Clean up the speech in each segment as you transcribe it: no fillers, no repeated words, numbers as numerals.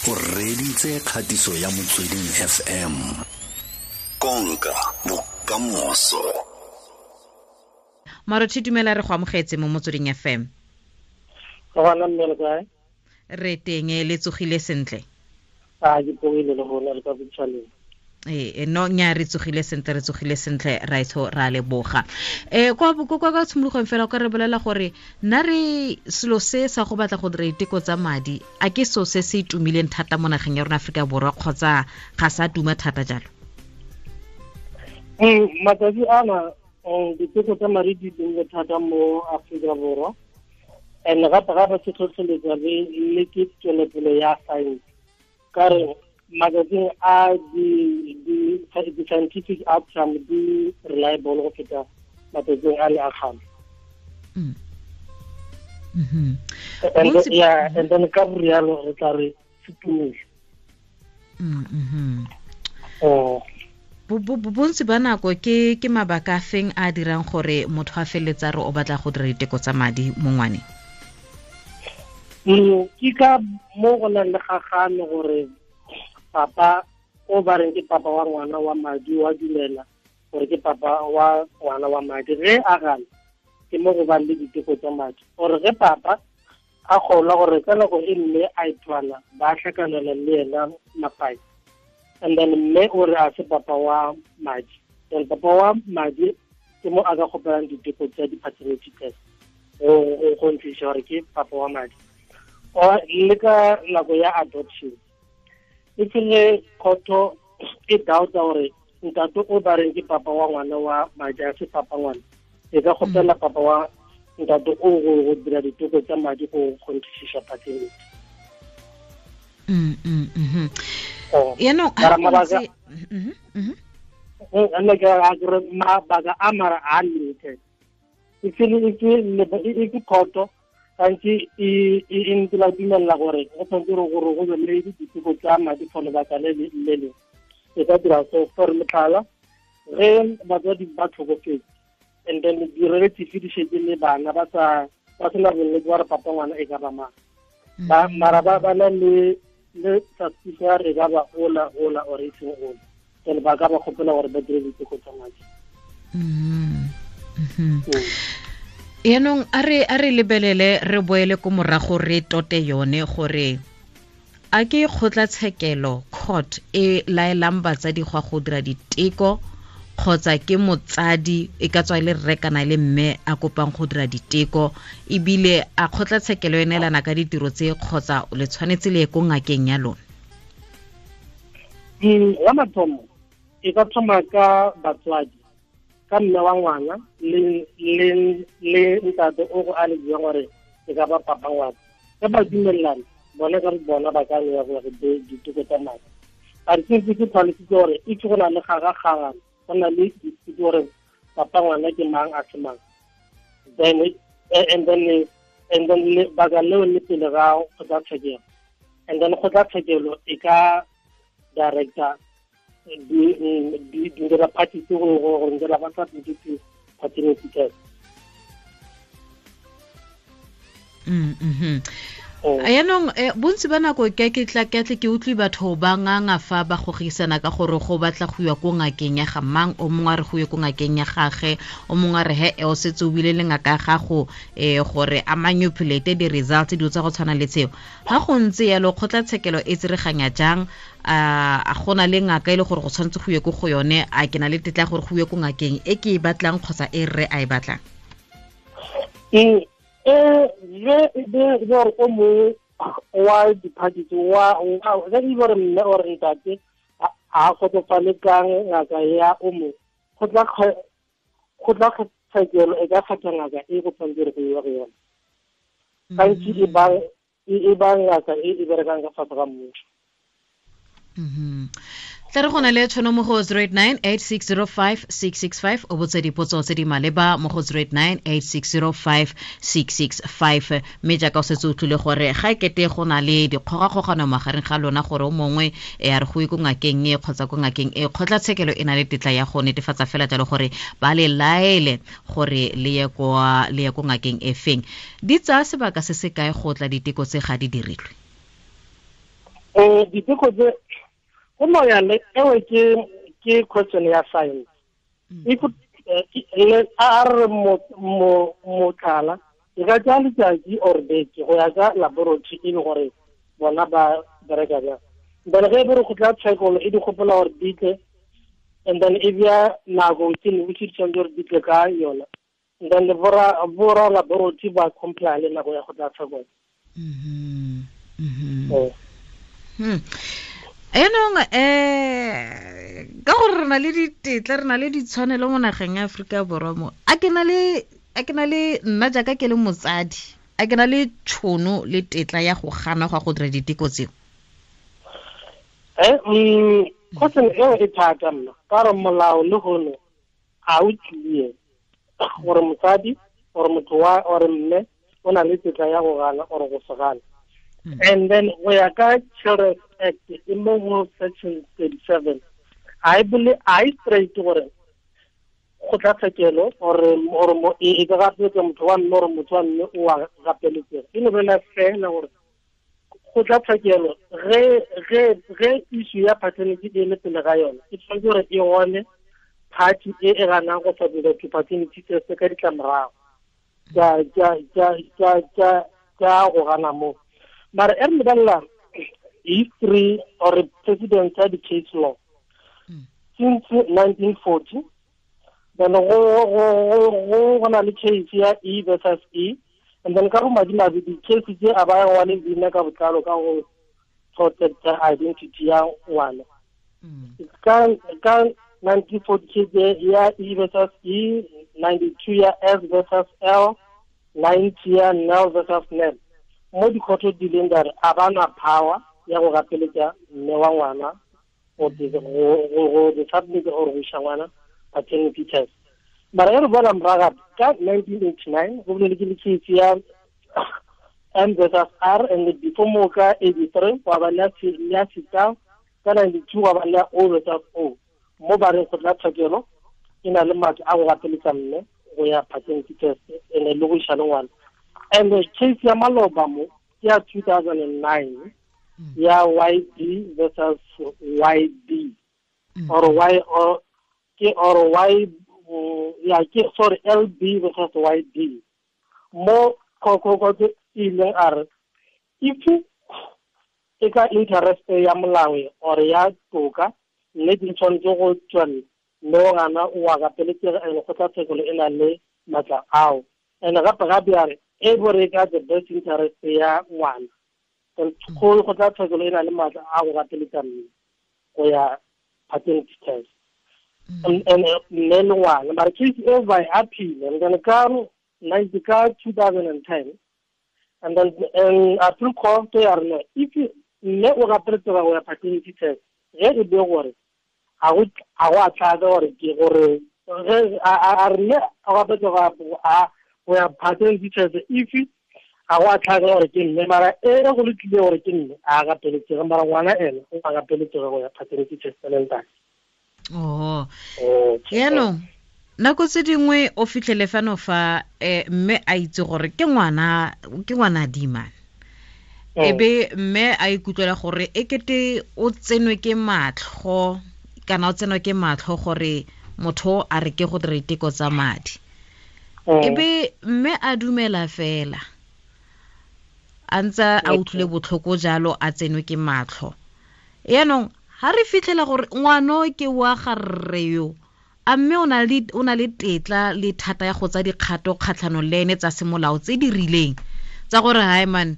O reditse kgatiso ya Motsweding FM. Konka bokamoso. Marothi, dumela, re go amogetse mo Motsweding FM. Gona mme, le kae? Re teng, le tsogile sentle? A ke pogile le gona, le ka botšhaleng. Ee, no nya, re tsogile sentle, re tsogile sentle, raitsho, ra leboga. Kwa tshimologong fela, o ka re bolela gore nna re selo se sa go batla go dira diteko tsa madi, a ke so se se tumileng thata mo nageng ya rona Aforika Borwa, kgotsa ga sa tuma thata jalo? Matsatsi ana diteko tsa madi di tumile thata mo Aforika Borwa, and gape gape se tlhotlheletsa le ke tswelopele ya science, ka re matsatsing a di-scientific outcome di reliable go feta matsatsing a le a kgale. And yeah, and then ka rialo re tla re se tumile. Oh. Bontsi ba nako ke mabaka a feng a dirang gore motho a feletsa re o batla go dira diteko tsa madi mo ngwaneng? Ke ka mo go nang le gagano gore papa o ba reng ke papa wa ngwana wa madi wa dumela gore ke papa wa ngwana wa madi. Ge a gana, ke mo go bang le diteko tsa madi, gore ge papa a kgolwa gore ka nako e mme a ithwala ba tlhakanela le ena mapai, and then mme o re a se papa wa madi, then papa wa madi ke mo a ka kgopelang diteko tsa di-paternity test go ntlisa gore ke papa wa madi. Or le ka nako ya adoption, e tsile khotho e doubta gore ntate o ba reng ke papa wa ngwana wa madi a se papa ngwana, e ka kgopela papa wa ntate o go dira diteko tsa madi go kgonthišiša paternity. Yaanong Mara nne ke a ke re mabaka a mara a limited, e ke khoto gantsi e ntse la dumella gore go tshwanetse gore go be le diteko tsa madi for lebaka le le lengwe. E ka dira so, for motlhala, ge batswadi ba tlhokofetse and then di-relative di shetse le bana ba sa ba sena bonnete ba re papa ngwana e ka ba mang, ba mara ba na le suspicion ya re e ka ba ola or e seng ola, then ba ka ba kgopela gore ba dire diteko tsa madi. Yaanong a re lebelele, re boele ko morago, re tote yone gore a ke kgotlatshekelo, court, e laelang batsadi go go dira diteko, kgotsa ke motsadi, e ka tswa e le rre kana e le mme, a kopang go dira diteko, ebile a kgotlatshekelo e neelana ka ditiro tse, kgotsa le tshwanetse le ye ko ngakeng ya lona? Ya mathomo, e ka thoma ka batswadi, ka mme wa ngwana le ntate o go a le buang gore e ka ba papa ngwana. Ge ba dumelelana bona ka bona, ba ka ya gore diteko tsa madi. A re sentse ke tlhalositse gore itse go na le gagagagana, go na le dispute gore papa ngwana ke mang, a se mang, then and then lebaka leo le pele ga kgotlatshekelo, and then kgotlatshekelo e ka director di dira parties go dira ba submit paternity test. Yaanong bontsi ba nako ke tla ke tle ke utlwe batho ba nganga fa ba gogisana ka gore go batla go iwa ko ngakeng ya ga mang, o mongwe a re go ye ko ngakeng ya gage, o mongwe a re he o setse o bile le ngaka ya gago, gore a manipulate di-results, dilo tsa go tshwana le tseo. Ga go ntse yalo, kgotlatshekelo e tsereganya jang? A gona le ngaka e le gore go tshwanetse go ye ko go yone? A ke na le tetla ya gore go ye ko ngakeng e ke e batlang, kgotsa e rre a e batlang? Ge gore o mongwe wa di-parties wa ge e gore mme or ntate a kgotsofale ka ngaka ya o mongwe, kgotlatshekelo e ka kgetha ngaka e go tshwanetse gore go iwa go yona. Gantsi e ba ngaka e e berekang ka fase ga mmuso. Tla re go na le tšhono mo go 089 8605 665, o botse dipotso tse di maleba mo go 089 8605 665. Mme jaaka o setse o tlile gore ga e kete go na le dikgogakgogano magareng ga lona, gore o mongwe e a re go ye ko ngakeng e kgotsa ko ngakeng e, kgotlatshekelo e na le tetla ya go netefatsa fela jalo gore ba le laele gore le ye ko ngakeng e feng. Di tsaya sebaka se se kae go tla diteko tse ga di dirilwe? Diteko tse go no ya le ewe ke question ya science. If a re motlhala e ka tsaya letsatsi or beke go ya ka laboratory e le gore bona ba bereka jang. Then ge e be re go tla tshekolo e di gopola gore di tle, and then e bea nako within which di tshwanetse gore di tle ka yona. And then le bora laboratory ba comply le nako ya go tla tshekolo. Enong ka gore re na le ditetla, re na le ditshwanelo mo nageng ya Aforika Borwa mo. A ke na le nna jaaka ke le motsadi, a ke na le tšhono le tetla ya go gana go dira diteko tseo? Question eo e thata mma, ka gore molao le gone ga o clear gore mosadi or motho wa or mme o na le tetla ya go gana or go se gana. And then go ya ka Children's Act e mo go section 37, I believe I straight gore go tla tshekelo or e ka gapeletsa motho wa mme or motho wa mme o a gapeletsega. E no bolela fela gore go tla tshekelo ge issue ya paternity e le pele ga yona, e tshwanetse gore e gone party e e ganang go submit to paternity test ka ditlamorago tsa go gana mo. Mara e re lebelela history or precedent ya di-case law since 1940, then go na le case ya E versus E, and then ka go madimabe di-case tse a ba wa le leina ka botlalo ka go protect identity ya ngwana. Ka 1940 case ya E versus E, 92 ya S versus L, 90 ya Nel versus Nel. Mo dikgotho di leng dare a ba na power ya go gapeletsa mme wa ngwana go submit or go isa ngwana paternity test. Mara e re bona morago ka 1989 go bolele ke le case ya M versus R, and before mo ka 83 wa ba le ya sita, ka 92 wa ba le O versus O. Mo ba reng go tla tshekelo e na le matla a go gapeletsa mme go ya paternity test and le go isa le ngwana. And the case ya maloba mo ya 2009 ya YD versus YB or Y or ke or Y ya ke sorry LB versus YD. Mo ko ile a re if e ka interest ya molao or ya toka mme di tshwanetse go tswella mme o gana o a gapeletsega and go tla tshekolo e na le matla ao. And gape gape a re e bore ka the best interest ya ngwana, go tla tshekolo e na le matla a go gapeletsa mme go ya paternity test. And mme le ngwana mara case e by appeal and then ka 2010, and then appeal court ya rena if mme o gapeletsega go ya paternity test ge e be gore a go a tlatsa gore ke gore ge a re mme a gapeletsega go ya paternity test if a go a tlhaka gore ke mme, mara e go lokile gore ke mme a gapeletsega, mara ngwana ene o a gapeletsega go ya paternity test le ntate. Oh, yaanong nako tse dingwe o fitlhele fano fa mme a itse gore ke ngwana dimane, ebe mme a ikutlwela gore e kete o tsenwe ke matlho kana o tsenwa ke matlho gore motho a re ke go dira diteko tsa madi, ebe mme a dumela fela a ntse a utlwile botlhoko jalo a tsenwe ke matlho. Yaanong ha re fitlhela gore ngwano ke wa ga rre yo, a mme o na le tetla le thata ya go tsa dikgato kgatlhanong le ene tsa semolao tse di rileng tsa gore hai man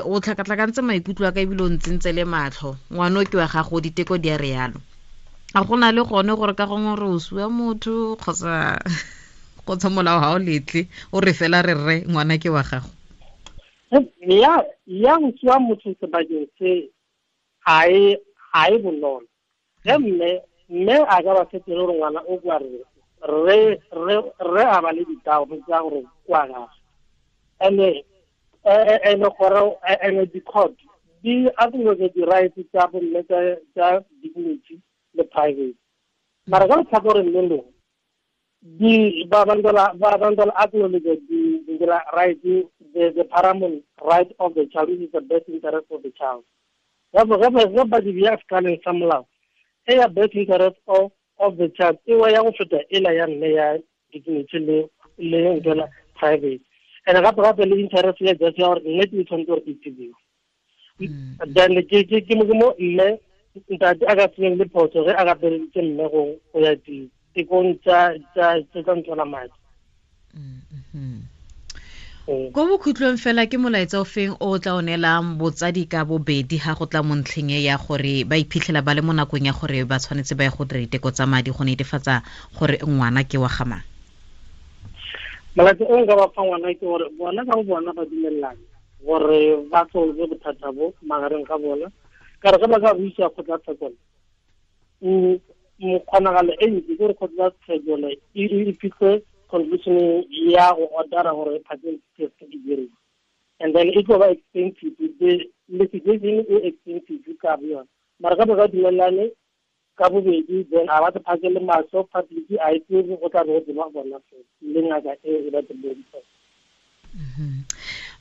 o tlhakatlhakantse maikutlo a ka ebile o ntsentse le matlho, ngwano ke wa gago, diteko di a re yalo. A go na le gone gore ka gongwe re o sua motho kgotsa molao ga o letle o re fela re rre ngwana ke wa gago? Ya go sua motho sebakeng se ga e bonolo. Ge mme a ka ba fetele gore ngwana o kwa rre re a ba le ditao tsa gore kwa gagwe. And gore and the court di acknowledge the rights tsa bomme tsa dignity le private. Mara ka letlhakoreng le lengwe di ba bandola acknowledge the right, the paramount right of the child, which is the best interest of the child. Ge ba di bea sekaleng sa molao, e ya best interest of the child e wa ya go feta ela ya mme ya dignity le ntwela private, and gape gape le interest ya just ya gore nnete e tshwanetse gore e tsebiwe. Then ke mo mme ntate a ka senyeng le phoso ge a gapeleditse mme go ya ditekong tsa ntwela madi. Ko bokhutlong fela, ke molaetsa o feng o tla o neelang botsadi ka bobedi ga go tla mo ntlheng e ya gore ba iphitlhela ba le mo nakong ya gore ba tshwanetse ba ye go dira diteko tsa madi go netefatsa gore ngwana ke wa ga mang? Molaetsa o nka ba fa ngwana ke gore bona ka bo bona ba dumelelane gore ba solve bothata bo magareng ga bona, ka re ge ba ka buisa kgotlatshekelo, kgonagalo e ntsi ke gore kgotlatshekelo e fitlhe conclusion ya go ordera gore paternity test e diriwe, and then e tlo ba expensive, the litigation e expensive ka bo yona. Mara ka ba ka dumelane ka bobedi, then a ba se phakele mahlo public, a e tsebe, go tla be go tseba bona fela le ngaka e ba tsebeng.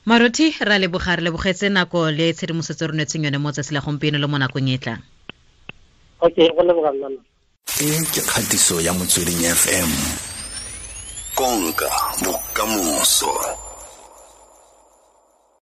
Marothi, ra leboga, re lebogetse nako le tshedimosetso re nwetseng yone mo tsatsi la gompieno le mo nakong e tlang. Okay, go leboga nna. E ke kgatiso ya Motsweding FM, konka bokamoso.